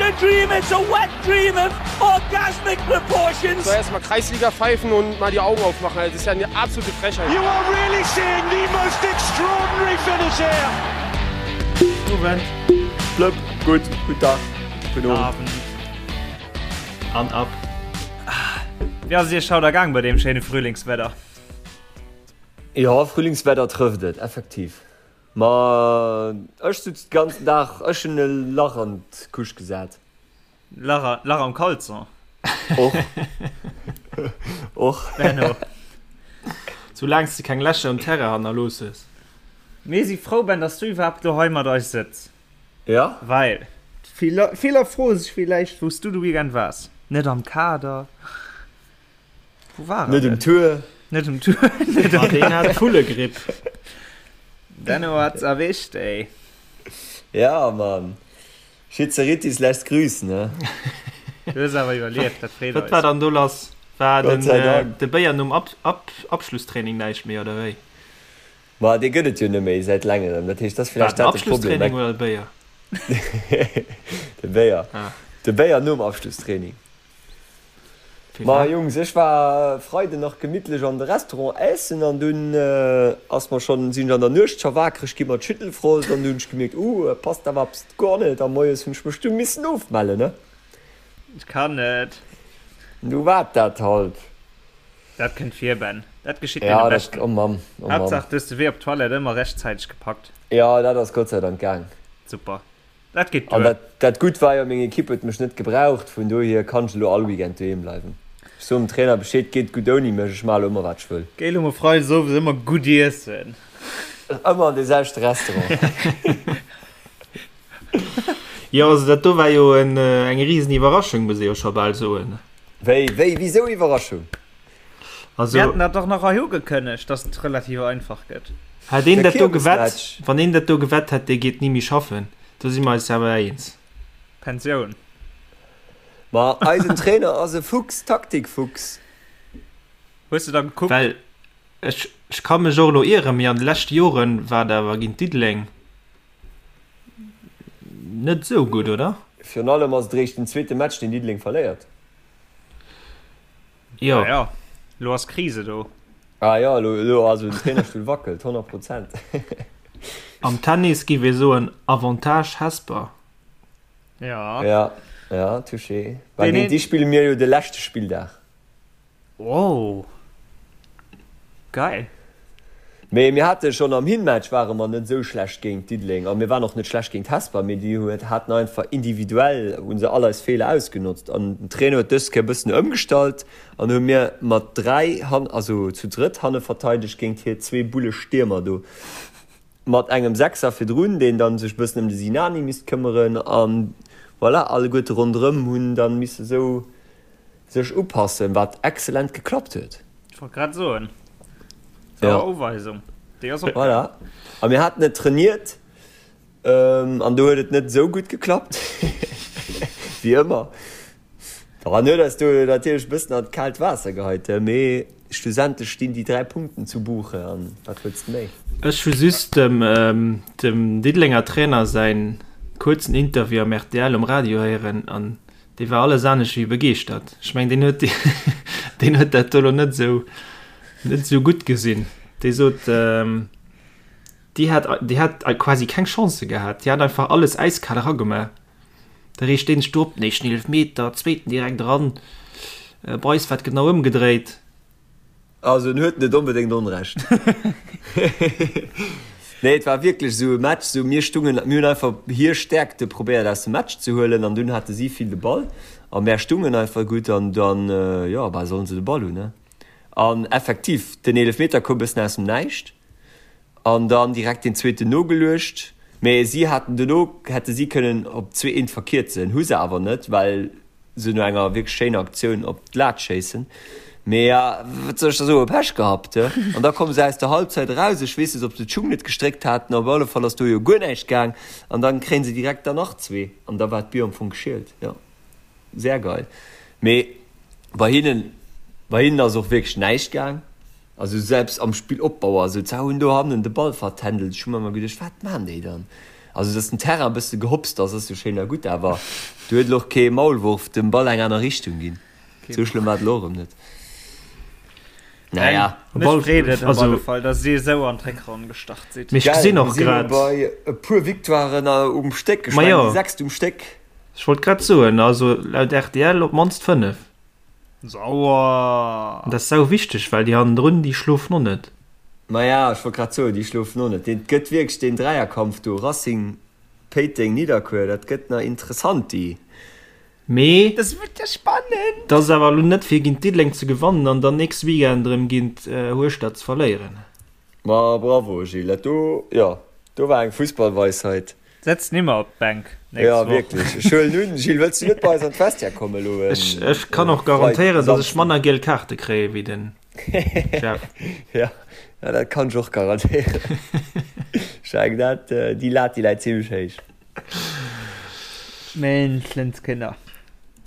a dream, it's a wet dream of orgasmic proportions. So erstmal Kreisliga pfeifen und mal die Augen aufmachen. Das ist ja eine absolute Frechheit. You are really seeing the most extraordinary finish here. Owend. Blëpp, gutt, gutt Dag, gudden Owend. Abend. An ab. Wéi ass et iech haut ergaang bei deem schéine Frühlingswedder? Jo, Frühlingswedder trëfft et effektiv. Ma ech sutz de ganzen Dag, ech hunn e Lach an d'Couche gesat. Lach, Lach am Caleçon? Och. Och. Benno. Soulaangs de keng Lächer um Terrain hannerlooss hues. Mir si frou, Ben, dass du iwwerhaapt lo hei mat eis sëtz. Ja. Well viller froe sech villäicht, wou s du de Weekend waars. Net am Kader. Wou war Net um Tour. Net um Tour. Net um Deen hat Vullegripp. Denno hat's erwischt, ey. Ja, Mann. Schizeritis lässt grüßen, ne? Du hues awer iwwerlieft, dat freet eis. Wat war dann do lass? War Gott sei Dank. de Béier nom Abschlusstraining näischt méi, oder wéi? Ma dee gëtt et jo net méi säit längerem. Dat heescht, dat ass War villäicht den dat de Problem. Abschlusstraining oder de Béier? De Béier. Ah. De Béier nom Abschlusstraining. Ma Jungs, ech war Freiden nach gemittlech an de Restaurant ässen an dunn ass mer schonn, sinn ech an der Nuecht scho wakereg gi mat Schüttelfrost an du hunn ech gemierkt, uh, et passt awer eppes guer net a moies hunn ech mech du missen ofmellen, ne? Ech kann net. Du war dat halt. Dat kënnt vir, Ben. Dat geschitt deene Ja, dat, Beschten. oh Mamm, oh Mamm. Haaptsaach, du hues de Wee op d'Toilette ëmmer rechtzäiteg gepackt. Jo, dat ass Gott sei Dank gaang. Super. Dat geet An duer. dat, dat Gutt war jo, meng Ekipp huet mech net gebraucht, vun dohier kann ech elo all Weekend doheem bleiwen. Ech soen dem Trainer Bescheed, geet gutt ouni mech, ech maache elo ëmmer wat ech wëll. Géi elo mol freides owes ëmmer gutt iessen. Ëmmer an dee selwechte Restaurant. Jo, also dat do war jo en, eng risen Iwwerraschung, muss ee jo scho bal soen. Wéi, wéi, wisou Iwwerraschung? Also, Mir haten dat dach nach hei ugekënnegt, dass et relativ einfach gëtt. Hätt een Der dat do gewett, Kiermesmatch. wann een dat do gewett hätt, dee geet ni méi schaffen, do si mer eis awer eens. Pensioun. Ma eisen Trainer ass e Fuchs, Taktikfuchs. Hues de da gekuckt? Well ech, ech ka mech och elo ieren, mee an de leschte Joren war et awer géint Diddeleng net esou gutt, oder? Virun allem ass et eréischt den zweete Match, deen Diddeleng verléiert. Jo. Ah ja, lo ass Krise do. Ah jo, elo, elo, also den Trainerstull wackelt, 100 Prozent. Am Tennis giff ee soen Avantage Hesper. Ja. Ja, ja, touché. Well Deen géint een. déi spille mir jo de leschte Spilldag. Oh. Geil. Mee mir hate schonn am Hinmatch ware mer net esou schlecht géint Diddeleng a mir waren och net schlecht géint Hesper, mee déi huet haten einfach individuell hu se all eis Feeler ausgenotzt an den Trainer huet dës Kéier e bëssen ëmgestallt an hu mir mat 3 han also zu drëtt hanne verteidegt géint hir zwee Bulle Stiermer do mat engem Sechser virdrun deen dann sech e bëssen ëm de Sinani misst këmmeren an voilà alleguerte ronderëm hunn dann misse sou sech upassen, wat excellent geklappt huet. Ech wollt grad soen, sauer ja. Uweisung, déi ass opgaangen. Voilà. A mir haten et trainiert ähm, an do huet et net esou gutt geklappt, wéi ëmmer. An huet eis do natierlech e bëssen an d'kaalt Waasser geheit, mee schlussendlech stinn déi 3 Punkten zu Buche an wat wëlls de méi? Ech hu just dem, ähm, dem Diddelenger Trainer säin kuerzen Interview am rtl um Radio héieren an Dee war alles anescht wéi begeeschtert. Ech mengen, deen huet, deen huet dat do lo net esou, net esou gutt gesinn. Dee sot, ähm, déi hat, déi hat quasi keng Chance gehat. Déi hat einfach alles äiskal eragemaach. Da reegt deen sech do op, den éischten Eelefmeter, zweeten direkt eran. Bei eis war et genau ëmgedréit. Also en huet net onbedéngt Onrecht. Nee, et war wierklech esou e Match, esou mir stungen, mir hunn einfach hir Stäerkte probéiert aus dem Match ze huelen an dunn hate si vill de Ball a mär stungen einfach gutt an dann, jo, bah, sollen se de Ball hunn, ne? An effektiv, den Eelefmeter koum bëssen aus dem Näischt an dann direkt deen zweeten nogeluecht, mee si haten dono, hätte si kënnen op 2, eent verkierzen, hu se awer net, well se no enger wierklech schéiner Aktioun op d'Lat schéissen. Mee ja, wat soll ech da soen, Pech gehabt, he? An da komme se aus der Halbzeit eraus, ech weess net, ob se d'Schung net gestréckt haten, op alle Fall ass do jo guer näischt gaang an dann kréien se direkt der nach zwee an da war d'Bier am Fong geschielt. Jo, sehr geil. Mee bei hinnen, bei hinnen ass och wierklech näischt gaang. Also selbst am Spillopbau, also se hunn do hannen de Ball vertändelt, ech hu mer ëmmer geduecht, wat maan déi dann? Also dass den Terrain e bësse gehopst ass, ass jo schéin a gutt, awer do huet elo och kee Maulwurf dem Ball eng aner Richtung ginn. Sou schlëmm war et elo erëm net. Naja. Mech freet et op alle Fall, dass dir esou an d'Réckronn gestart sidd. Mee ech gesinn och grad. Mir si elo bei e puer Victoiren um Stéck. Ech mengen déi sechst um Stéck. Ech wollt grad soen, also laut rtl op d'mannst 5. Sauer! An dat ass sau wichteg, well déi hannendrun, déi schlofen och net. Maja, ech wollt grad soen, déi schlofen och net. Et gëtt wierklech deen Dräierkampf do, Racing, Péiteng, Nidderkuer, dat gëtt nach interessant déi. Mee Dat gëtt jo spannend! dat ass awer elo net fir géint Diddeleng ze gewannen an dann nächste Weekend erëm géint Hueschtert ze verléieren. Ma bravo Gilles, dat do, jo, do war eng Fussballweisheit. Setz nimmer op d'Bänk nächst Woch. Ja wierklech, ech huelen un. Gilles, wëlls du net bei eis an d'Vestiaire kommen elo en Ech, ech kann och garantéieren, dass ech manner giel Kaarte kréie wéi den Jeff. Ja, ja, dat kann ech och garantéieren. Ech mengen dat, déi Lat déi läit zimlech héich. Menschenskinder.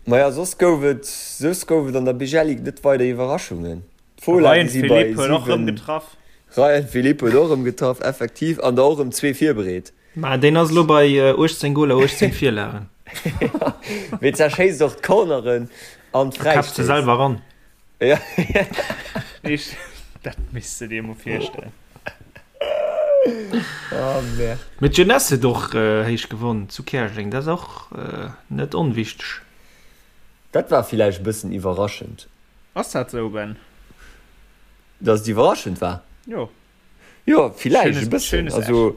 Maja, soss gouf et, soss gouf et an der Bijelic net weider Iwwerraschungen. D'Fola, Ryan déi si bei Philippe huet och rëm 7. getraff. Ryan Philippe huet och rëm getraff, effektiv, an der och rëm zwee virbereet. Mä deen ass elo bei 18 Goler, 18 Virlagen. Mee zerschéisst och d'Corneren an A käppt se d'Fräistéiss. selwer eran. Ja. Ich, dat misst de dir mol virstellen. Oh, merde. Mee d'Jeunesse huet och héich gewonn zu Käerjeng, dat ass och net onwichteg. Dat war villäicht e bëssen iwwerraschend. Ass dat sou, Ben? Dass et iwwerraschend war? Jo. Jo, villäicht e bëssen. Also,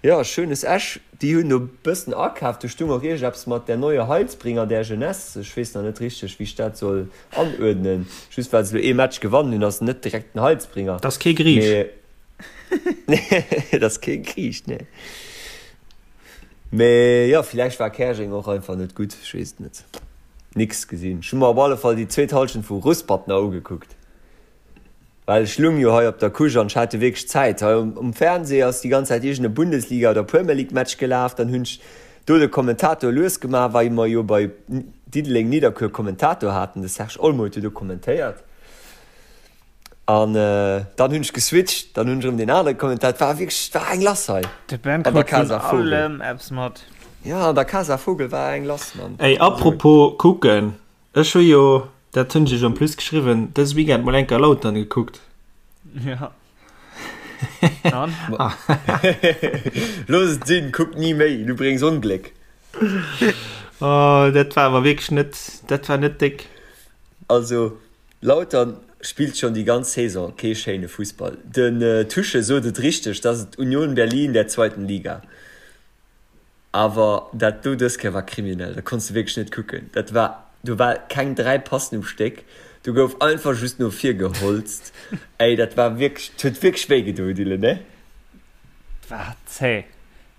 jo, Schönes Esch, déi hunn do e bëssen akaaft. Do stung och iergendeppes mat der neue Heilsbringer der Jeunesse. Ech weess nach net richteg, wéi ech dat soll anuerdnen. Just well se elo ee Match gewannen hunn, ass en net direkt den Heilsbringer. Dat ass kee Griich. Mee, dat ass kee Griich, nee. Mee jo, villäicht war Käerjeng och einfach net gutt, ech weess et net. Nix gesinn. Ech hu mer op alle Fall déi zweet Halschent vu Ruspert nach ugekuckt, well ech lung jo hei op der Couche an ech hat jo wierklech Zäit. Hei um Fernseh ass déi ganz Zäit iergend e Bundesliga oder Premier League Match gelaf, dann hunn ech do de Kommentator lues gemaach, wei mer jo bei Diddeleng Nidderkuer Kommentator haten, de Serge Olmo huet jo do kommentéiert. An dann hunn ech geswitcht, dann hunn ech erëm deen anere Kommentar. Et war wierklech, et war eng lass hei De Ben an der krut vun Casa Vogel. allem eppes mat. Ja, an der Casa Vogel war eng lass, Mann. Ey, apropos kucken, ech hu jo, dat hunn ech iech en plus geschriwwen, dëse Weekend mol enker Lautern gekuckt. Ja. An? Looss et sinn, kuck ni méi, du bréngs Ongléck. Oh, dat war awer wierklech net, dat war net déck. Also, Lautern spillt schonn déi ganz Saison kee schéine Fussball. Den Tusche sot et richteg, dass et Union Berlin der zweiten Liga. Awer dat do dës Kéier war kriminell, dat konns de wierklech net kucken. Dat war, do war keng 3 Passen um Stéck, do gouf einfach just no vir geholzt. Ey, dat war wierklech, 't huet wierklech wéi gedoen, Dylan, ne? War zäh.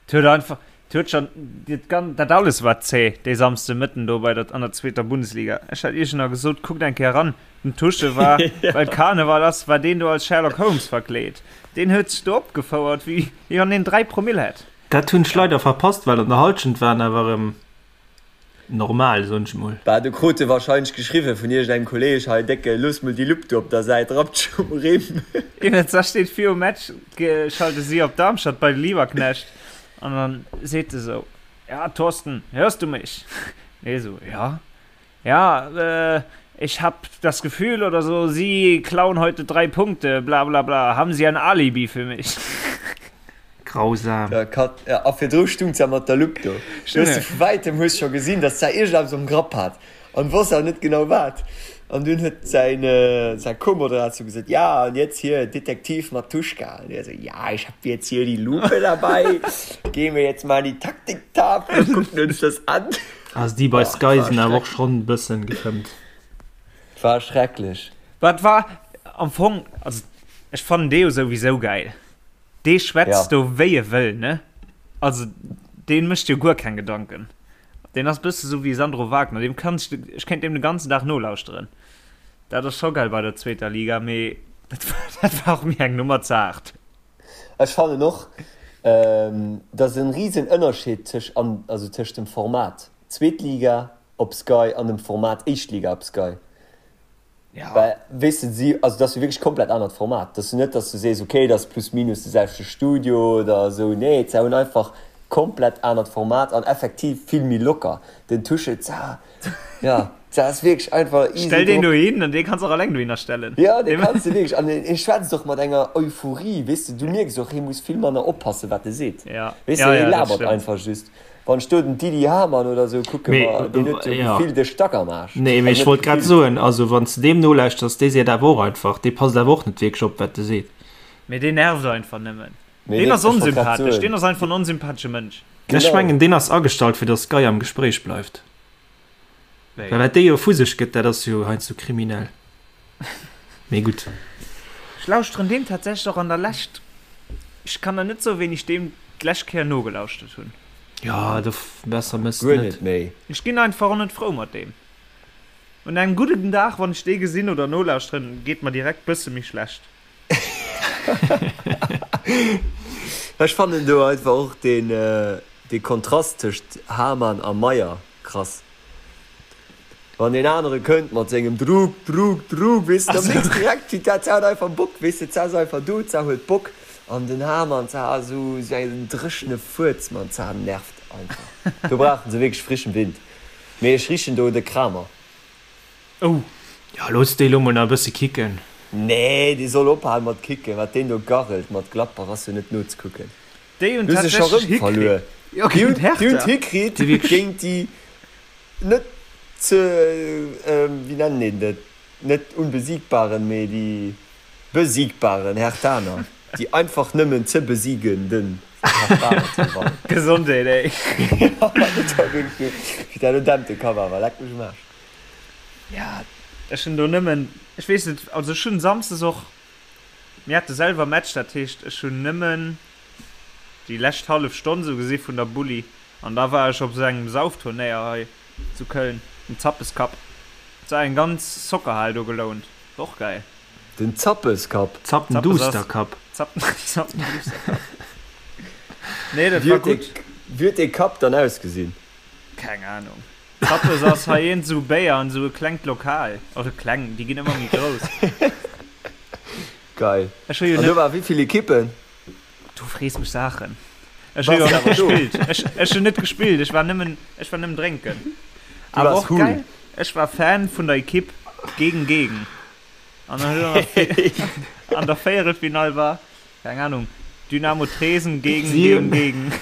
't huet einfach, 't huet schon, dat gan, dat alles war zäh dee Samsde Mëtten do bei der, an der zweeter Bundesliga. Ech hat iech nach gesot, kuckt eng Kéier eran, den Tusche war, well Karneval ass, war deen do als Sherlock Holmes verkleet. Deen huet sech do opgefouert, wéi, wéi wann deen 3 Promill hätt. Dat hunn ech leider verpasst, well an der Halschent waren awer erëm Normal, soen ech mol. Bah, do krut e wahrscheinlech geschriwwen vun iergendengem Kolleg, Hei Décke, looss mol déi Lupp do op der Säit, rappt dech um Rimm. Iwwens, da steet virum Match, schalte si op Darmstadt bei de Lieberknecht an dann seet e sou, Ja, Thorsten, hörst du mich? Hie sou, Ja. Ja, ich hab das Gefühl oder so, Sie klauen heute drei Punkte, bla bla bla, haben Sie ein Alibi für mich? Grausam. Ja, Kat, ja, a virdru stung se mat der Lupp do. Du hues se vu wäitem hues scho gesinn, datt se iergendeppes am Grapp hat an wosst awer net genau wat. An dunn huet säin, säi Co-Moderator gesot, Ja, und jetzt hier Detektiv Matuschka. An hie sou, Ja, ich hab jetzt hier die Lupe dabei, gehen wir jetzt mal an die Taktiktafel und gucken uns das an. Also déi bei Sky sinn awer och schonn e bëssen gefëmmt. War schrecklech. Wat war am Fong, also ech fannen dee jo souwisou gäil. Dee schwätzt do wéi e wëll, ne? Also dee mécht jo guer keng Gedanken. Deen ass bësse sou wéi Sandro Wagner, deem kann ech, ech kéint deem de ganzen Dag nolauschteren. Dat ass scho geil bei der zweeter Liga, mee dat war och mir eng Nummer ze haart. Ech fannen och, dass en riesen Ënnerscheed tësch an also tëscht dem Format zweet Liga op Sky an dem Format éischt Liga op Sky. Ja. Well weess de si, also dat ass jo wierklech komplett anert Format. Dat ass jo net, dass du sees, okay, dat ass plus minus de selwechte Studio oder esou. Nee, se hunn einfach. Komplett anert Format an effektiv vill méi locker. Den Tuchel, za, ja, za ass wierklech einfach easy Stell deen drop. dohin an dee kanns och alleng dohinner stellen. Ja, dee kanns de wierklech an hie schwätzt och mat enger Euphorie, weess de, du mierks och, hie muss vill manner oppassen, wat e seet. Ja, Weess de, ja, hie ja, dat labert stëmmt. einfach just. Wann ech do den Didi Hamann oder sou kucke, Mee, ma deen huet jo ja. gefillt e Stack am Aarsch. Nee, mee Also ech net wollt grad gefillt. soen, also wann s de deem nolauschters, dee seet awer och einfach, dee passt awer och net wierklech op, wat e seet. Mee dee nervt einfach nëmmen. Mee Deen deen, ass ech wollt grad onsympathesch, soen. deen ass einfach en onsympathesche Mënsch. Ech Genau. mengen, deen ass agestallt, fir datt Sky am Gespréich bleift. Wéi? Well wat dee jo vu sech gëtt, dat ass jo heiansdo kriminell. Mee gutt. Ech lauschteren deem tatsächlech och an der Lescht, ech kann der net soen, wéini ech deem d'lescht Kéier nogelauschtert hunn. Jo, do besser mëss Guer net. net méi. Ech ginn einfach och net frou mat deem. Un engem gudden Dag, wann ech dee gesinn oder nolauschteren, geet mer direkt bësse méi schlecht. Ech fannen do einfach och deen dee Kontrast tëscht Hamann a Meyer krass. Wann deen anere kënnt mat sengem Druck, Druck, Druck, weess de, da mierks direkt wéi dat hat einfach Bock, weess de, d'Sa ass einfach do, d'Sa huet Bock an den Hamann, d'Sa ass esou esou en dréchene Fuerz, man, d'Sa nervt einfach. Do brauchen se wierklech frischen Wind. Mee ech richen do de Kramer. Oh! Jo, looss déi lo mol nach e bësse kicken. Nee, dee soll ophalen mat kicken. Wat deen do garrelt mat Gladbach ass jo net nozekucken. Déi hunn Hu se scho tatsächlech rëm verluer. hikritt. Jo, Déi géint hunn déi hunn d'Hertha. hikritt Déi wierklech. géint déi net ze, wéi nennen een dat, net unbesiegbaren, mee déi besiegbaren Herthaner, déi einfach nëmmen ze besiegenden Herthaner ze gewannen. Gesondheet, ey. Jo, dat war wierklech, wéi dat elo dämpt de Kapp awer, leck mech um Aarsch. Ja, ech hunn do nëmmen, ech weess net, also ech hunn samsdes och, mir hate selwer Match, dat heescht ech hunn nëmmen déi lescht hallef Stonn sou gesi vun der Bulli an da war ech op sou engem Saufturnéier hei zu Köln, dem Zappes Cup. Et war eng ganz Soccerhal do gelount, war och geil. Den Zappes Cup? Zappenduster Cup. Zappenduster Cup. Nee, dat war gutt. Wéi huet dee Cup dann ausgesinn? Keng Ahnung. Zappes ass hei eent esou Béier an esou e klengt Lokal. Also kleng, déi ginn ëmmer méi grouss. Geil. Ech hu jo An do net. war wéi vill Ekippen? Du frees mech Saachen. Ech hu jo net gespillt. Ech, ech hunn net gespillt, ech war nëmmen, ech war nëmmen drénken. Du Awer waars och cool. geil, ech war Fan vun der Ekipp gegen gegen. An dann huet an der, an der Véierelfinall war, Keng Ahnung. Dynamo Tresen gegen gegen gegen.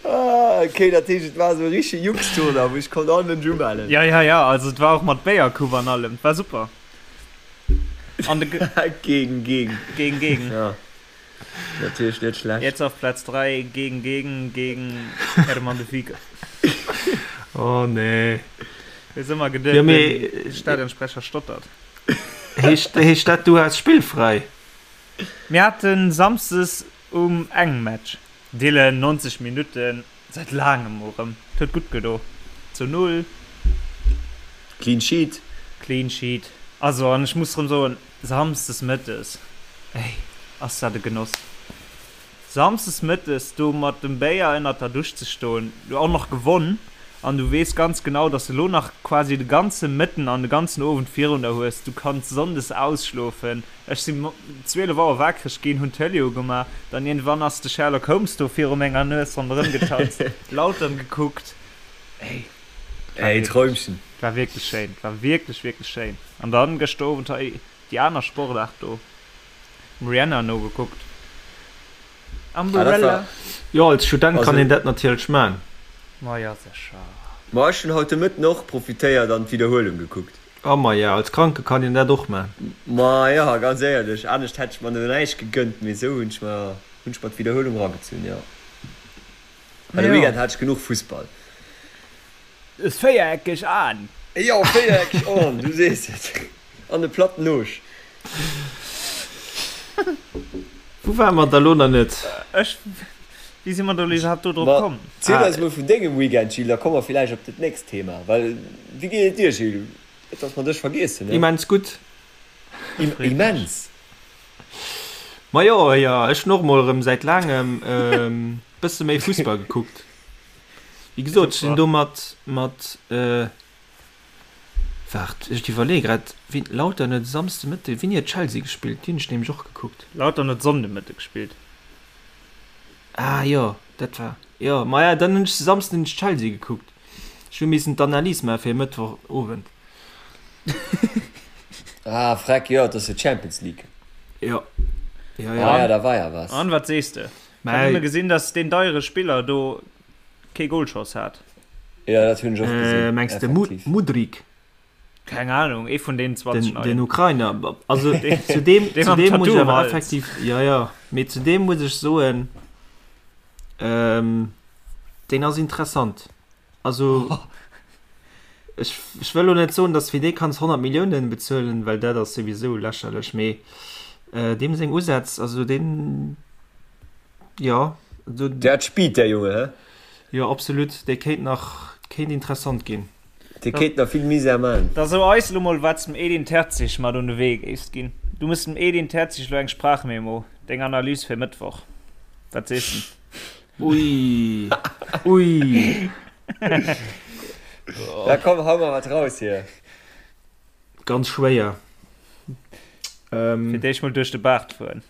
Ah, okay, dat heescht et war esou e richtege Jux-Tournoi, wou sech konnt all Mënsch umellen. Ja, ja, ja, also et war och mat Béiercoupe an allem, et war super. An de Gegen gegen. Gegen gegen. Ja, natierlech net schlecht. Jetzt auf Platz 3 gegen gegen gegen Hermann de Vigue. Oh nee. Weess ëmmer geduet, Ja, mee den Stadionsprecher stottert. Heescht, heescht dat du has spillfräi? Mir haten Samsdes um eng Match. Dylan, 90 Minutten, säit laangem mol rëm. Et huet gutt gedo. Zu 0. Clean Sheet. Clean Sheet. Also, an ech muss rëm soen, Samsdes mëttes, ey, ass dat e Genoss. Samsdes mëttes do mat dem Béier ënnert der Dusch ze stoen, du och nach gewonn an du weess ganz genau, dass de lo nach quasi de ganze Mëtten an de ganzen Owend virun der hues, du kanns sonndes ausschlofen. Ech si 12 Auer waakreg ginn, hunn d'Tëlee ugemaach, dann iergendwann ass de Sherlock Holmes do viru menger Nues ronderëm getanzt, Lautern gekuckt. Ey, et war Ey, wierklech, Träumchen. et war wierklech schéin, et war wierklech, wierklech schéin. An dann gëschter Owend hei déi aner Sportaart do. Dem Rihanna nogekuckt. Umbrella. Jo, als Student kann een dat natierlech man. Ma jo, sécher. Ma ech hunn haut de Mëtten och profitéiert an d'Widderhuelung gekuckt. A maja, als Kranke kann een dat och man. Ma jo, ganz éierlech, anescht hätt ech mer do näischt gegënnt, mee esou hunn ech mer hunn ech mer d'Widderhuelung ragezunn, jo. Well de Weekend hat ech genuch Fussball. Véiereckeg Aen. Jo, véiereckeg Aen, du sees et. An e platten Noosch. Wou ware mer da lo nach net? Ech, wéi si mer do lo iwwerhaapt do drop Ma komm? ziel eis mol vun dengem Weekend, Gilles, da komme mer villäicht op dat nächst Thema. Well, wéi geet et dir, Gilles? Net, dass mer dech vergiessen, ne? Immens gutt. Immens? Ma jo, jo, ech hunn och mol erëm säit laangem e bësse méi Fussball gekuckt. Wéi gesot, ech sinn do mat, mat. Waart, ech iwwerleeë grad, wien, Lautern huet e Samsde Mëtte, wéini huet Chelsea gespillt? Déi hunn ech nämlech och gekuckt. Lautern huet Sonnde Mëtte gespillt. Ah jo, dat war, jo, maja, dann hunn ech de Samsden hunn ech Chelsea gekuckt. Ech hu missen d'Analys maache fir e Mëttwoch Owend. Ah, freck, jo, et ass jo Champions League. Jo, jo, jo. Ah ja, da war ja was. An, wat sees de? Ech hat nëmme gesinn, dass deen deiere Spiller do kee Golschoss hat. Jo, dat hunn ech och gesinn. Mengs de Mudryk? Keng Ahnung, ee vun deenen 20 Neien. Den Ukrainer. Also zu deem, zu deem muss ech awer effektiv, jo, jo, mee zu deem muss ech soen, deen ass interessant. Also ech, ech wëll elo net soen, datt fir dee kanns 100 Milliounen bezuelen, well dat ass souwisou lächerlech, mee deem seng Usätz, also deen, jo. Der hat Speed, der Junge, hä? Jo, absolut, dee kéint nach, kéint interessant ginn. Dee kéint nach vill Misär man. Da so eis elo mol wat s dem Edin Terzic mat un de Wee géifs ginn. Du muss dem Edin Terzic elo eng Sprachmemo, deng Analys fir Mëttwoch. Wat sees de? Ui, ui. Da komm, hau mer wat raus hier. Ganz schwéier. Fir d'éischt mol duerch de Baart fueren.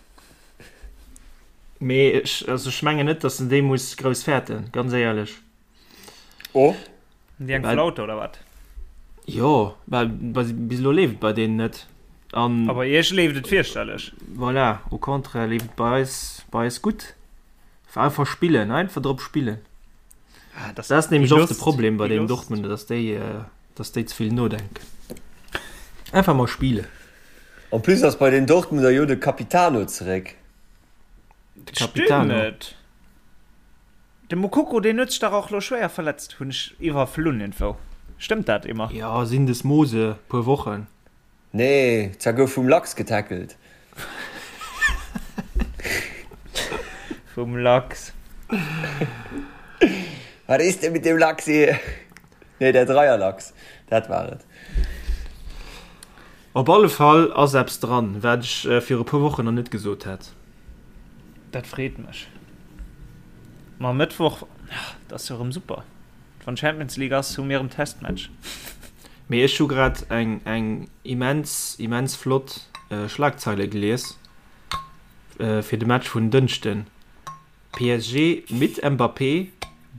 Mee ech, also ech mengen net, datt en déi muss grouss fäerten, ganz éierlech. Oh. Déi eng Flaute oder wat? Jo, well bis elo leeft et bei deenen net. An A bei iech leeft et fierchterlech. Voilà, au contraire leeft et bei eis, bei eis gutt. Einfach spillen, einfach drop spillen. Ah, das, das ass nämlech oft de Problem bei den Dortmunder, dass déi, äh, dass déi ze vill nodenken. Einfach mal spille. En plus ass bei den Dortmunder jo de Capitano zeréck. De Capitano. Stimmt. De Moukoko deen huet sech dach och lo schwéier verletzt, hunn ech iwwerflunn irgendwou. Stëmmt dat Emma? Jo, Syndesmose, puer Wochen. Nee, zwar gouf vum Lachs getackelt. Vum Lachs. Wat is denn mit dem Lachs hier? Nee, der Dreierlachs, dat war et. Op alle Fall ass eppes dran, wat ech viru puer Wochen nach net gesot hätt. Dat freet mech. Ma Mëttwoch, dat ass jo erëm super. Wann Champions League ass, hu mir erëm Testmatch. Mee ech hu grad eng eng immens immens flott Schlagzeile gelies fir de Match vun Dënschden, PSG mit Mbappé,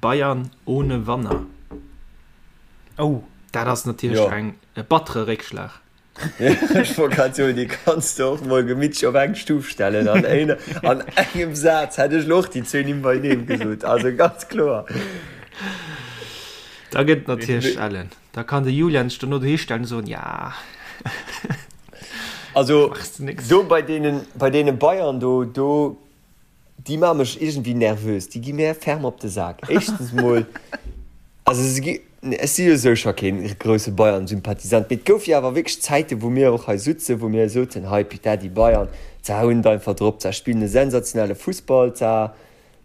Bayern ohne Wanner. Oh. Dat ass natierlech eng e battere Réckschlag. Ech wollt grad soen, déi kanns de och mol gemittlech op eng Stuf stellen. An een, an engem Saz hätt ech lo och déi zwee Nimm beineem gesot. Also ganz kloer. Da gëtt et natierlech ellen. Da kann de Julian sech dono dohi stellen an soen, ja. Also do bei deenen, bei deene Bayern do, do Déi maache mech iergendwéi nervös, déi gi mär ferm op de Sak. Éischtens mol, also se gi, ech si jo sou scho kee grousse Bayern-Sympathisant, mee et gouf jo awer wierklech Zäiten, wou mir och hei sutzen, wou mir soten, hei putain, déi Bayern, za hunn et einfach drop, za spillen e sensationelle Fussball, za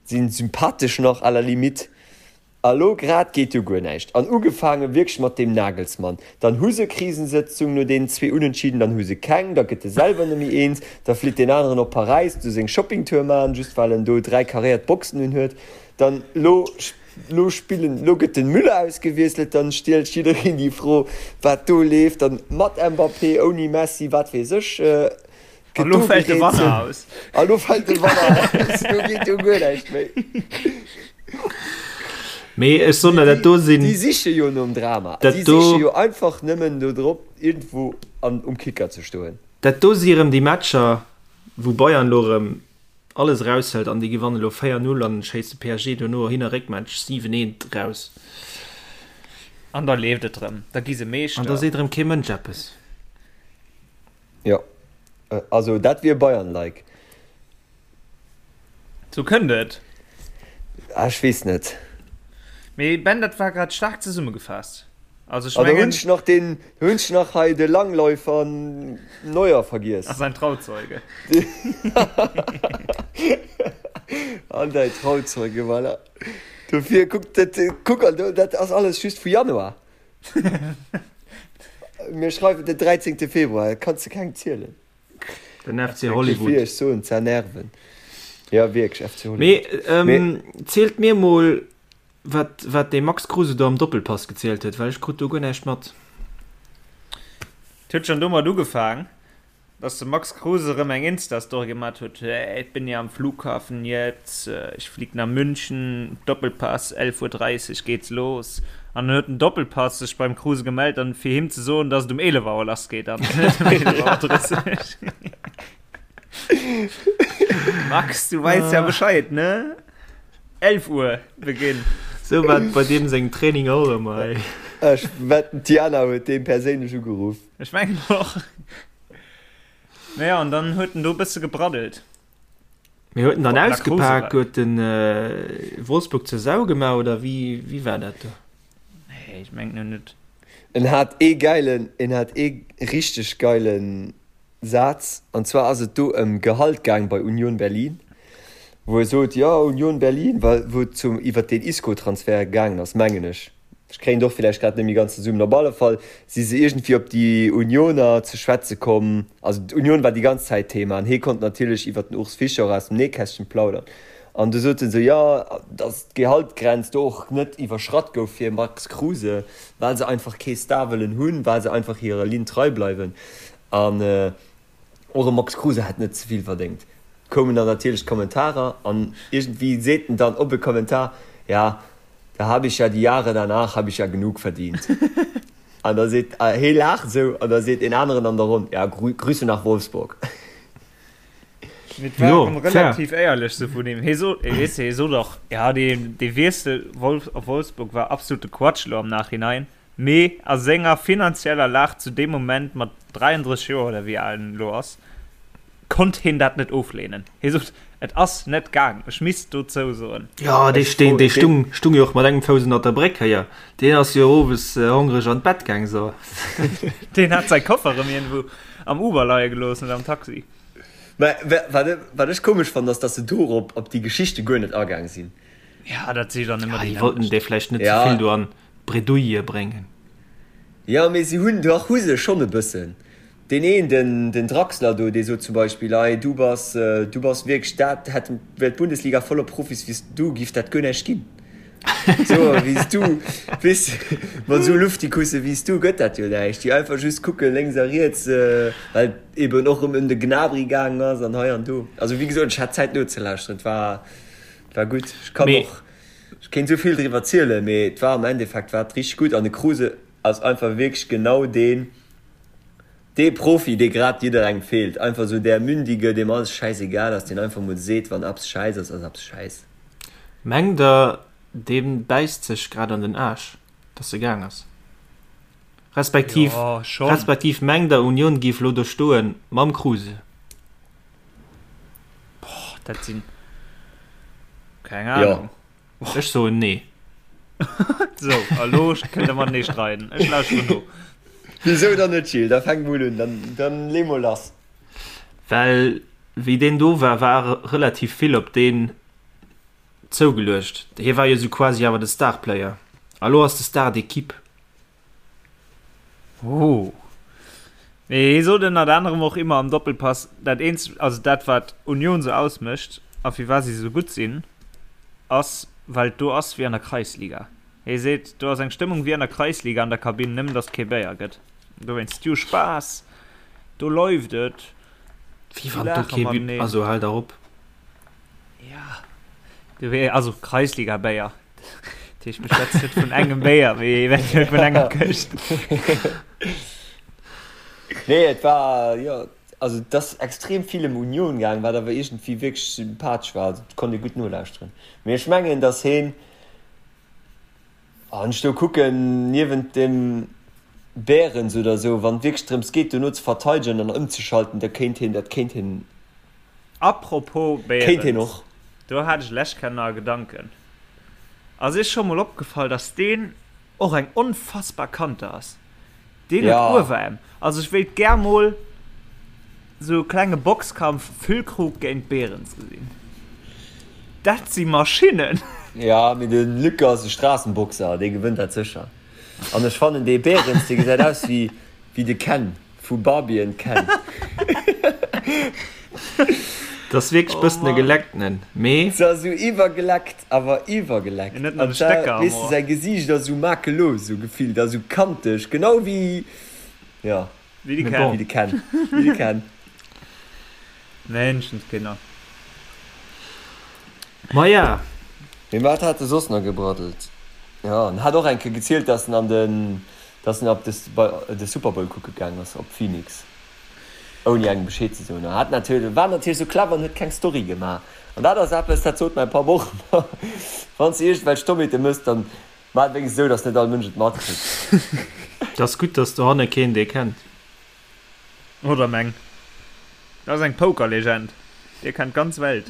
si sympathesch nach à la limite. A lo grad geet jo guer näischt. An ugefaange wierklech mat deem Nagelsmann. Dann hu se Krisensëtzung no deenen zwee Unentschieden, dann hu se keng, da gëtt e selwer net méi eens, da flitt deen aneren op Paräis do seng Shoppingtour maachen, just well en do 3 karéiert Boxen un huet. Dann lo, lo spillen, lo gëtt den Müller ausgewiesselt, dann stiellt jiddereen déi Fro, wat do leeft, dann mat Mbappé, ouni Messi, wat weess ech. A lo fält de Wanner aus. A lo fält de Wanner aus. Do geet jo guer näischt méi. Mee ech soen der, dat do sinn. Déi siche jo nom Drama. Déi siche jo einfach nëmmen do drop, iergendwou an um Kicker ze stoen. Dat do si erëm déi Matcher, wou Bayern elo erëm alles eraushëlt an déi gewannen elo 4, 0 an schéisse PSG dono Hin a Réckmatch 7, 1 raus. An da leeft et erëm. Da gi se Meeschter. An da seet erëm kee Mënsch eppes. Jo, also dat wier Bayern-like. Sou kënnt et. Ah, ech weess net. Mee Ben, dat war grad staark zesummegefaasst. Also ech mengen. Ah, do hunn ech nach den, do hunn ech nach hei de Langläufer Neuer vergiess. A säin Trauzeuge. An däi Trauzeuge, voilà. Dofir, kuck, dat, kuck, an do, dat ass alles just vu Januar. Mir schreiwen den 13. Februar, et kanns de kengem zielen. Den FC Hollywood. Wéi ech soen, z'ernerven. Ja, wierklech, FC Hollywood. Mee, ähm, zielt mir mol, wat, wat dee Max Kruse do am Doppelpass gezielt huet, well ech krut do guer näischt mat. Et huet schonn domat ugefaang, dass de Max Kruse erëm eng Insta-Story gemat huet, Hey, ich bin ja am Flughafen jetzt, ich flieg nach München, Doppelpass, 11.30 Uhr geht's los. An dann huet den Doppelpass sech beim Kruse gemellt, an fir him ze soen, dass et um 11 Auer lass geet an net um 11.30 Auer. Max, du weiss ja Bescheid, ne? 11 Uhr Beginn. Sou war et bei deem sengem Training och ëmmer, ey. Ech wetten d'Diana huet dee perséinlech ugeruff. Ech mengen och. Naja, an dann huet en do e bësse gebraddelt. Mee huet en dann ausgepak, huet en Wolfsburg zur Sau gemaach oder wéi, wéi war dat do? Nee, ech mengen net. En hat ee geilen, en hat ee richteg geilen Saz, an zwar ass et do ëm Gehalt gaang bei Union Berlin, wou e sot, jo Union Berlin, well wou et zum iwwert deen Isco-Transfert gaangen ass, mengen ech, ech kréien et och villäicht grad net méi ganz zesummen, op alle Fall si se iergendwéi op déi Unioner ze schwätze komm, also d'Union war déi ganz Zäit Thema an hee konnt natierlech iwwert den Urs Fischer och aus dem Nähkästchen plaudern an du sot en esou, jo, datt d'Gehaltgrenz do och net iwwerschratt gouf fir Max Kruse, well se einfach kee Star wëllen hunn, well se einfach hirer Linn trei bleiwen. An och e Max Kruse hätt net ze vill verdéngt. Koumen dann natierlech d'Kommentarer an iergendwéi seet en dann op e Kommentar, Ja, da habe ich ja die Jahre danach habe ich ja genug verdient. An da seet, hee laacht esou an da seet een aneren an der Ronn, Ja, Grüße nach Wolfsburg. Mee et war erëm relativ éierlech sou vun him. Hie sot, weess de, hie sot och, ja, dee Wiessel op Wolfsburg war absolute Quatsch elo am Nachhinein. Mee a senger finanzieller Lag zu deem Moment, mat 33 Joer oder wéi al en elo ass, konnt hien dat net ofleenen. Hie sot, Et ass net gaang, ech misst dozou soen. Jo, dee stung, dee stung, stung jo och mat engem Fouss ënnert der Bréck héier. Deen ass jo owes hongreg an d'Bett gaang, so. Deen hat säi Koffer erëm iergendwou am Uber leie gelooss oder am Taxi. Mä wat, wat ech komesch fannen, ass, datt se dorop, op déi Geschichte guer net agaang sinn. Ja, dat si dann ëmmer déi. Ja, déi wollten dee vläicht net ze vill do an d'Bredouille bréngen. Jo, mee si hunn, dach hu se schonn e bëssen. Deen een, den, den Draxler do, dee sot zum Beispill, Ei, du bass, du bass wierklech dat, hätt, wär d'Bundesliga voller Profis wéi s du, giff dat guer näischt ginn. Sou wéi s du, weess, mat esou Luftikusse wéi s du gëtt dat jo näischt. Déi einfach just kucke lénks a riets, well et eben och erëm ëm de Gnabry gaangen ass an hei an do. Also wéi gesot, ech hat Zäit nozelauschteren, et war, et war gutt. Ech kann och. Ech kéint esou vill driwwer zielen, mee et war am Endeffekt war et richteg gutt an de Kruse ass einfach wierklech genau deen, dee Profi, dee grad jidderengem feelt. Einfach esou där Mündige, deem alles schäisegal ass, deen einfach mol seet, wann eppes schäiss ass, ass eppes schäiss. Mengt der, dee bäisst sech grad an den Aarsch, dass e gaang ass? Respektiv, Jo, schonn. respektiv mengt der, Union géif elo do stoen mam Kruse? Boah, dat sinn. Keng Ahnung. Jo. Ech soen nee. Sou, a lo kënnt der matenee streiden. Ech lauschteren no. Wisou dann net, Gilles? Da fänk mol un, dann, dann lee mol lass. Well wéi deen do war, war relativ vill op deen zougeluecht. Hie war jo sou quasi awer de Starplayer. A lo ass de Star d'équipe. Oh. Mee hie sot ënnert anerem och immer am Doppelpass, dat eenzegt, also dat wat Union sou ausmécht a firwat si sou gutt sinn, ass well et do ass wéi an der Kreisliga. Hie seet, do ass eng Stëmmung wéi an der Kreisliga an der Kabinn, nëmmen datt et kee Béier gëtt. Dowéinst, déi hu Spaass, do läuft et, Wéi wann do kee Bi-, also hal der op. Ja, also Kreisliga-Béier. Dat heescht, mir schwätzen net vun engem Béier, mee eventuell vun enger Këscht. Nee, et war, jo, also et ass extrem vill ëm Union gaang, wat awer iergendwéi wierklech sympathesch war. Also et konnt ee gutt nolauschteren. Mee ech mengen, datt heen, wann ech do kucken, niewent dem Behrens oder esou, wann et wierklech drëms geet, dono ze verteidegen an ëmzeschalten, da kéint heen, dat kéint heen. Apropos Behrens, do hat ech lech kennen a Gedanken. Ass iech scho mol opgefall, dass deen och eng onfassbar Kante ass? Deen huet Ueweräm. Also ech wéilt gär mol sou e klenge Boxkampf Füllkrug géint Behrens gesinn. Dat si Maschinnen! Jo, mee de Luc ass e Straassenboxer, dee gewënnt dat sécher. An ech fannen dee Behrens, dee gesäit aus wéi de Ken. Vu Barbie and Ken. Dat ass wierklech bëssen e Gelecktenen, mee. Se ass esou iwwergeleckt, awer iwwergeleckt. En huet nach de Stecker am Weess de, Ohr. säi Gesiicht ass esou makellos, esou gefillt, a sou kanteg, genau wéi, jo. Wéi de Ken. Wéi de Ken. Wéi de Ken. Menschenskinner. Maja. Mee wat hat e soss nach gebraddelt? Jo, en hat och eng Kéier gezielt, dass en an den, dass en op de, bei de Super Bowl kucke gaang ass, op Phoenix, ouni engem Bescheed ze soen. An hat natierlech, war natierlech sou clever an huet keng Story gemaach. An dat ass eppes, dat sot mäi Papp och ëmmer, Wann s de iergendwelch Dommheete mëss, dann maach et wéinstens esou, dass net all Mënsch et matkritt. Et ass gutt, dass dohanne keen dee kennt. Oder meng. Dat ass eng Pokerlegend. Dir kennt d'ganz Welt.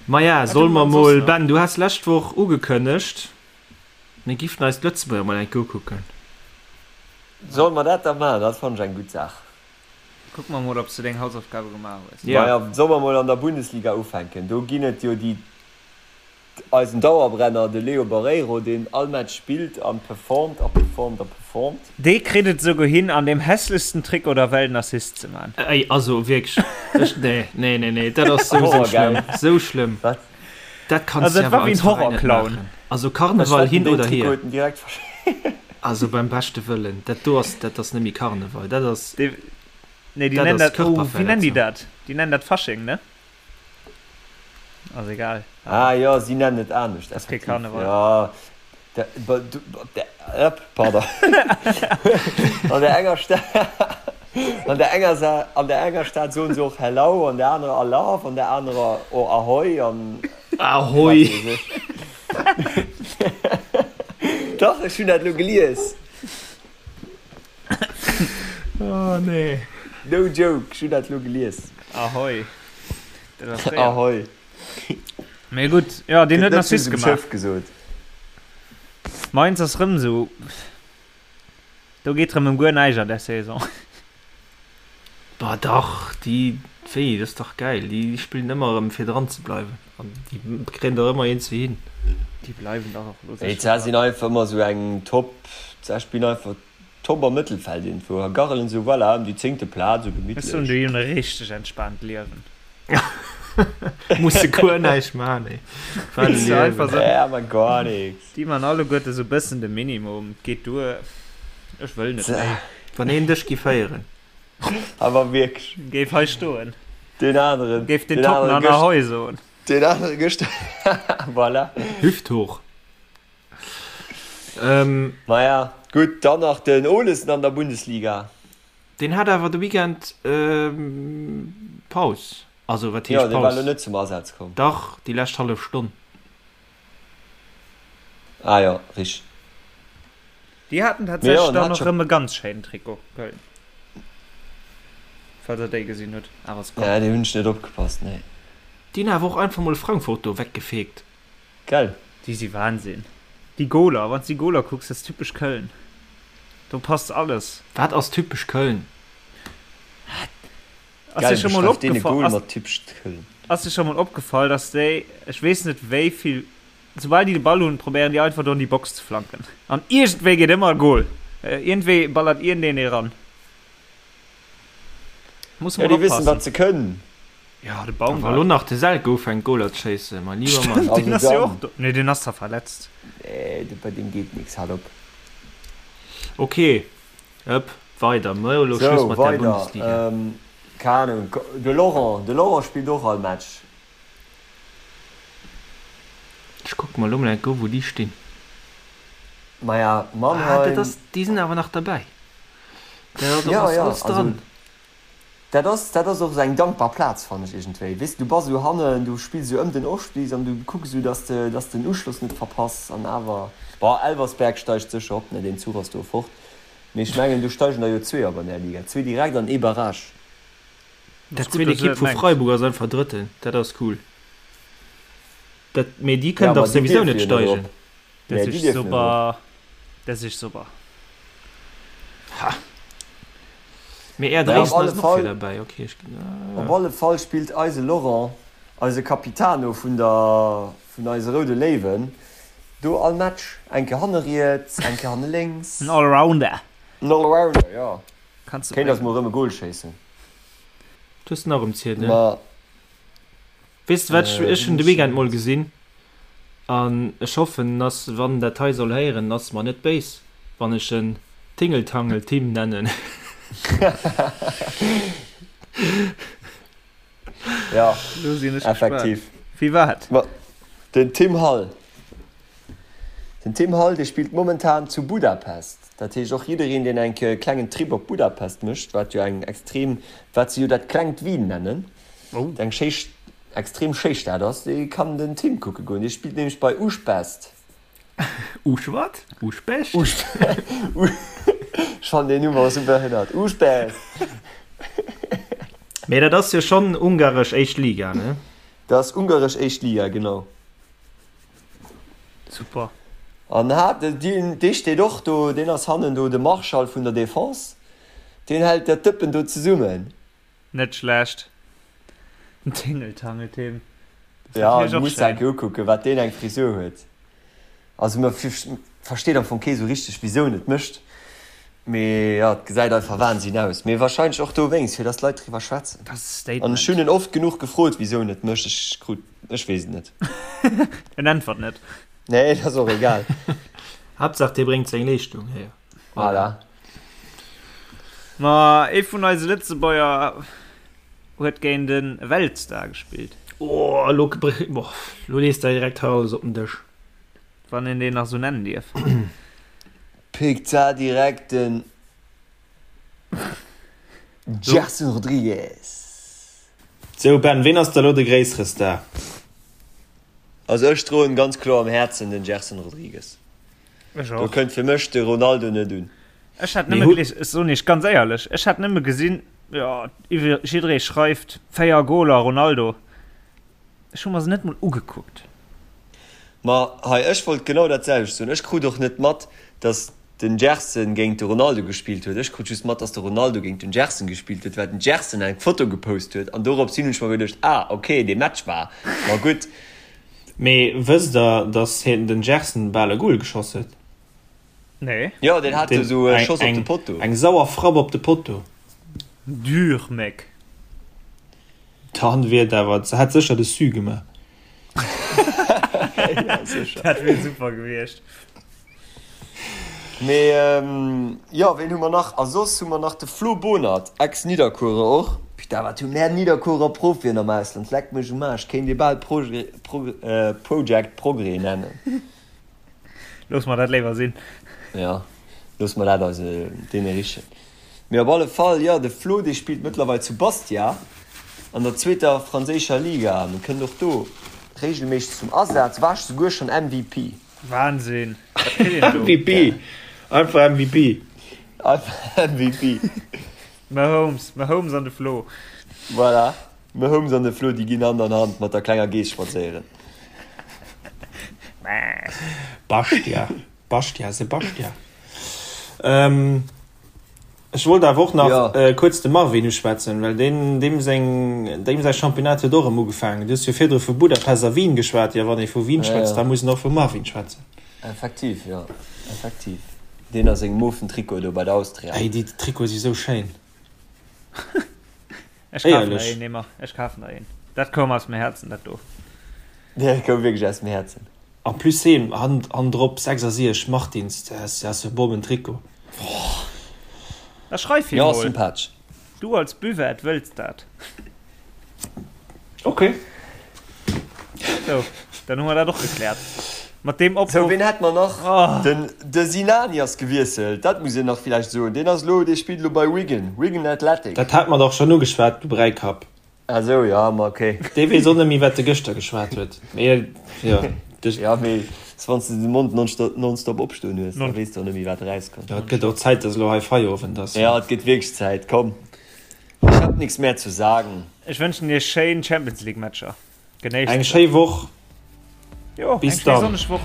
Maja, solle mer mol, Ben, du has lescht Woch ugekënnegt, mir giffen eis d'Lëtzebuerger mol eng Kéier ukucken. Solle mer dat da maachen? Dat fannen ech eng gutt Saach. Kucke mer mol, ob s du deng Hausaufgabe gemaach hues. Maja, solle mer mol an der Bundesliga ufänken? Do ginn et jo déi Eisen Dauerbrenner, de Leo Barreiro, deen all Match spillt an performt a performt a performt. Dee kritt et esouguer hin, an deem hässlechsten Trikot der Welt en Assist ze man. Ey, also wierklech, ech, nee, nee, nee, nee, dat ass sou, sou schlëmm, sou schlëmm. Wat? Dat kanns Also de dat war awer wéi en als Veräin net Horrorclown. maachen. Also Ech Karneval wetten, hin deen oder Trikot hier. huet en direkt versch. Also beim beschte Wëllen, dat do ass, dat ass net méi Karneval, dat ass, Dee, nee, déi dat nennen ass dat, oh, wéi nennen déi Körperverletzung. dat? Déi nennen dat Fasching, ne? Ass egal. Ah jo, si nennen et anescht, Ass kee effektiv. Karneval. Jo, de, ba, du, ba, de, ëpp, pardon. An der enger Stad, an der enger Sa, an der enger Stad soen se och Hello, an der anerer Alaaf, an der anerer och Ahoi an Ahoi! wat weess ech. Dach, ech hunn dat elo gelies. Oh nee. No joke, ech hunn dat elo gelies. Ahoi. Dat ass fréier. Ahoi. Mee gutt, jo, deen Gëtt huet en net just Assist um gemaach. Schëff gesot. Mainz ass rëm esou. Do geet rëm ëm guer näischt an där Saison. Bah dach, déi, wéi, dat ass dach gäil. Déi spillen ëmmer erëm fir dran ze bleiwen an déi kréien der ëmmer een ze hin. Déi bleiwen dach och elo Déi sécher dran. sinn einfach ëmmer esou eng Top, se spillen einfach Top am Mëttelfeld iergendwou a garrelen esou, voilà, ëm déi zéngte Plaz, esou Ech soen, gemittlech. déi hunn e richteg entspaant Liewen. Musse guer näischt man, ey. Wat e Weess du, einfach Liewen. esou, Ja, ma gar nix. déi man alleguerte esou bëssen de Minimum, et geet duer, ech wëll net méi. Wann een dech gi féieren. Awer wierklech. Géif hei stoen. Deen aneren. Géif den Toppen an Ahoi soen. Deen anere gëschter. Voilà. Hüft hoch. Maja, gutt, dann nach den Olesen an der Bundesliga. Deen hat awer de Weekend Paus. Also wat heescht Jo, dee war Paus? elo net zum Asaz komm. Dach, déi lescht hallef Stonn. Ah jo, richteg. Déi haten Mee jo, tatsächlech en dann hat och scho. rëm e ganz schéinen Trikot, Köln. Falls der déi gesinn hutt. Awer ass komm. Nee, déi hunn ech net opgepasst, nee. Déi hunn awer och einfach mol Frankfurt do weggefegt. Gell? Déi si Wahnsinn. Déi Goler, wann s déi Goler kucks, dat ass typesch Köln. Do passt alles. Wat ass typesch Köln? Ass dir Gell, scho mol beschreift deen e opgefall, Goal ass, mat typesch Köln? ass dir scho mol opgefall, dass déi, ech weess net wéi vill, soubal déi de Ball hunn, probéieren déi einfach do an déi Box ze flanken. An iergendwéi geet ëmmer e Goal. Iergendwéi ballert iergendeen ee ran. Muss Ja, mol déi wëssen, oppassen. wat se kënnen. Ja, de A wa lo Baumgart. nach de Selke ufänkt Goaler ze schéissen, mein lieber Mann. Stimmt, deen Also ass jo dann. och do. Nee, deen ass zwar verletzt. Nee, bei deem geet nix, hal op. Ok, ëpp, weider. Mir hu lo Schluss Sou, mat der weider. Bundesliga. Ähm, keng Ahnung, de Laurent, de Laurent spillt och all Match. Ech kucke mer lo mol enk u wou déi stinn. Maja, Ah, dat Mannheim. ass, déi sinn awer nach derbäi. Dat Ja, ass ja, alles also dran. dat ass, dat ass och esou eng dankbar Plaz, fannen ech iergendwéi. Weess de, du bass esou hannen, du spills esou ëm den Ofstig an du kucks esou, dass de, dass de den Uschloss net verpass an awer, bon, Elversberg steigt sécher op, ne, deen Zuch ass do fort, mee ech mengen, do steigen der jo zwee op an där Liga, zwee direkt an ee Barrage. Dat Ass gutt, zweet dass du Ekipp dat vu mengs. Freiburg ass einfach Drëtten, dat ass cool. Dat, mee déi Ja, kënnen ma dach déi souwisou dierfe net jo net erop. steigen. Dat Nee, déi is dierfen net erop. super. Dat is super. Ha! Mee Är Naja, op Dresden alle ass och vir Fall, derbäi, ok. Ech, op alle Fall spillt eise Laurent, eise Capitano vun der, vun eise Roude Léiwen, do all Match. Eng Kéier hanne riets, eng Kéier hanne lénks. En Allrounder. En Allrounder, jo. Kanns de Kéint eis bréngen. mol erëm e Goal schéissen. Du hues en nach um Ziedel. Ma Weess de wat, ech, ech hunn de Weekend mol gesinn. An ech hoffen, dass, wann en dat hei soll héieren, ass mer net béis, wann ech en Tingeltangel-Tim nennen. Ja, Lo sinn ech effektiv. gespaant. Wie wat? Ma den Tim Hall. Den Tim Hall, dee spillt momentan zu Budapest. Dat heescht och jiddereen, deen eng klengen Trip op Budapest mécht, wat jo eng extrem, wat se jo dat klengt Wien nennen, eng schéi, extrem schéi Stad ass, dee kann den Tim kucke goen. Dee spillt nämlech bei Újpest. Usch wat? Uschpescht? Ech fannen deen Numm och esou behënnert. Újpest! Mee dat ass jo schonn ungaresch éischt Liga, ne? Dat ass ungaresch éischt Liga, genau. Super. An hat, deen, dee steet och do, deen ass hannen do de Marschall vun der Defense. Deen hält dat Dëppen do zesummen. Net schlecht. Den Tingeltangel-Tim. Dat ass Ja, natierlech du och muss schéin. enke ukucken, wat deen eng Frisur huet. Also mer versteet am Fong kee sou richteg, wisou en et mécht. Mee jo, et gesäit einfach Wahnsinn aus. Mee wahrscheinlech och dowéinst, fir dass d'Leit driwwer schwätzen. Dat ass e An ech Statement. hunn en oft genuch gefrot, wisou en et mécht. Ech krut, ech weess et net. En äntwert net. Nee, dat ass och egal. Haaptsaach dee bréngt seng Leeschtung hier. Voilà. Ma ee vun eise Lëtzebuerger huet géint e Weltstar gespillt. Oh, elo, elo lees de direkt hei alles op den Dësch. Wann een deen nach sou nennen dierf. Pickt da direkt den Gerson Rodrigues. Sou Ben, ween ass da lo de gréissere Star? Also ech droen ganz kloer am Häerzen den Gerson Rodrigues. Ech Do och. kënnt fir mech de Ronaldo net un. Ech hat Mee nëmme hu. gelies, ech soen iech ganz éierlech, ech hat nëmme gesinn, jo, iwwer jidderee schreift 4 Goler Ronaldo. Ech hu mer se net mol ugekuckt. Ma hei, ech wollt genau dat selwecht soen. Ech krut och net mat, datt den Gerson géint de Ronaldo gespillt huet. Ech krut just mat, datt de Ronaldo géint den Gerson gespillt huet, well den Gerson eng Foto gepost huet. An dorops hin hunn ech mer geduecht, ah ok, dee Match war ma gutt. Mee wësst der, datt hien, den Gerson, bal e Goal geschoss huet? Nee. Jo, deen hat Den, esou e eng, Schoss op de eng, Potto. eng sauer Frapp op de Potto. Dur, mec. Dann wier et awer, hätt sécher de Sue gemaach. Ja, sécher. Dat wier super gewiescht. Mee jo, ween hu mer nach? A soss hu mer nach de Flo Bonert, Ex-Nidderkuerer och. Putain, wat hu mär Nidderkuerer Profien am Ausland, leck mech um Aarsch, kéint ee bal Project Progrès nennen. Loosse mer dat léiwer sinn. Jo, loosse mer dat eise deene richen. Mee op alle Fall, jo, de Flo, dee spillt mëttlerweil zu Bastia an der zweeter franséischer Liga an kënnt och do regelméisseg zum Asaz, war souguer schonn MVP. Wahnsinn, wat kritt een do? MVP, einfach MVP. Einfach MVP. Mahomes, Mahomes an de Flo. Voilà, Mahomes an de Flo, déi ginn Hand an Hand mat der klenger Geess spadséieren. Bastia, Bastia, Sebastia. Ähm, Ech wollt awer och nach ja. kuerz de Marvin uschwätzen, well deen, deem seng, deem säi Championnat huet och erëm ugefaangen. Du hues jo virdru vu Budapest a Wien geschwat. Jo, wann ee vu Wien schwätzt, ja, ja. da muss en och vum Marvin schwätzen. Effektiv, jo, effektiv. Deen a sengem mofen Trikot do bei der Austria. Ey, déi Trikote si sou schéin. Ech kafen der een, Neymar. Ech kafen der een. Dat koum aus dem Häerzen, dat do. Dat koum wierklech aus dem Häerzen. En plus heen hannendrop 66 Martins, dat ass e Bommen Trikot. Da schreif him Jo, mol. sympathesch. Du als Buvette wëlls dat. Ok. Sou, dann hu mer dat och gekläert. Mat deem Sou, Opruff. ween hätt mer nach? Oh. Den de Sinani ass gewiesselt, dat muss een nach villäicht soen. Deen ass elo, dee spillt elo bei Wigan, Wigan Athletic. Dat hat mer dach schonn ugeschwat, du Bräikapp. Ah sou, jo, ma ok. Dee weess och net méi, wat e gëschter geschwat huet. Mee jo, de. Jo, mee s wann s de de Mond nonstop opstoen hues, da weess de och net méi, wat erauskënnt. Jo, et gëtt och Zäit, dass elo hei Feierowend ass. Jo, et gëtt wierklech Zäit. Komm, ich hab nix mehr zu sagen. Ech wënschen iech schéin Champions League Matcher. Genéisst Eng se. schéi Woch. Jo, Bis eng schéi dann. sonneg Woch.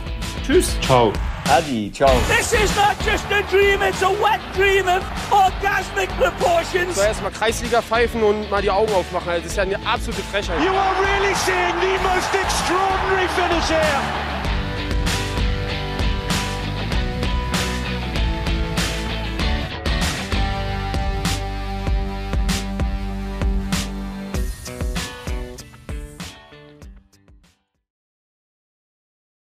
Tschüss. Ciao. Adi, ciao. This is not just a dream, it's a wet dream of orgasmic proportions. So erstmal Kreisliga pfeifen und mal die Augen aufmachen. Also, das ist ja eine absolute Frechheit. You are really seeing the most extraordinary finish here.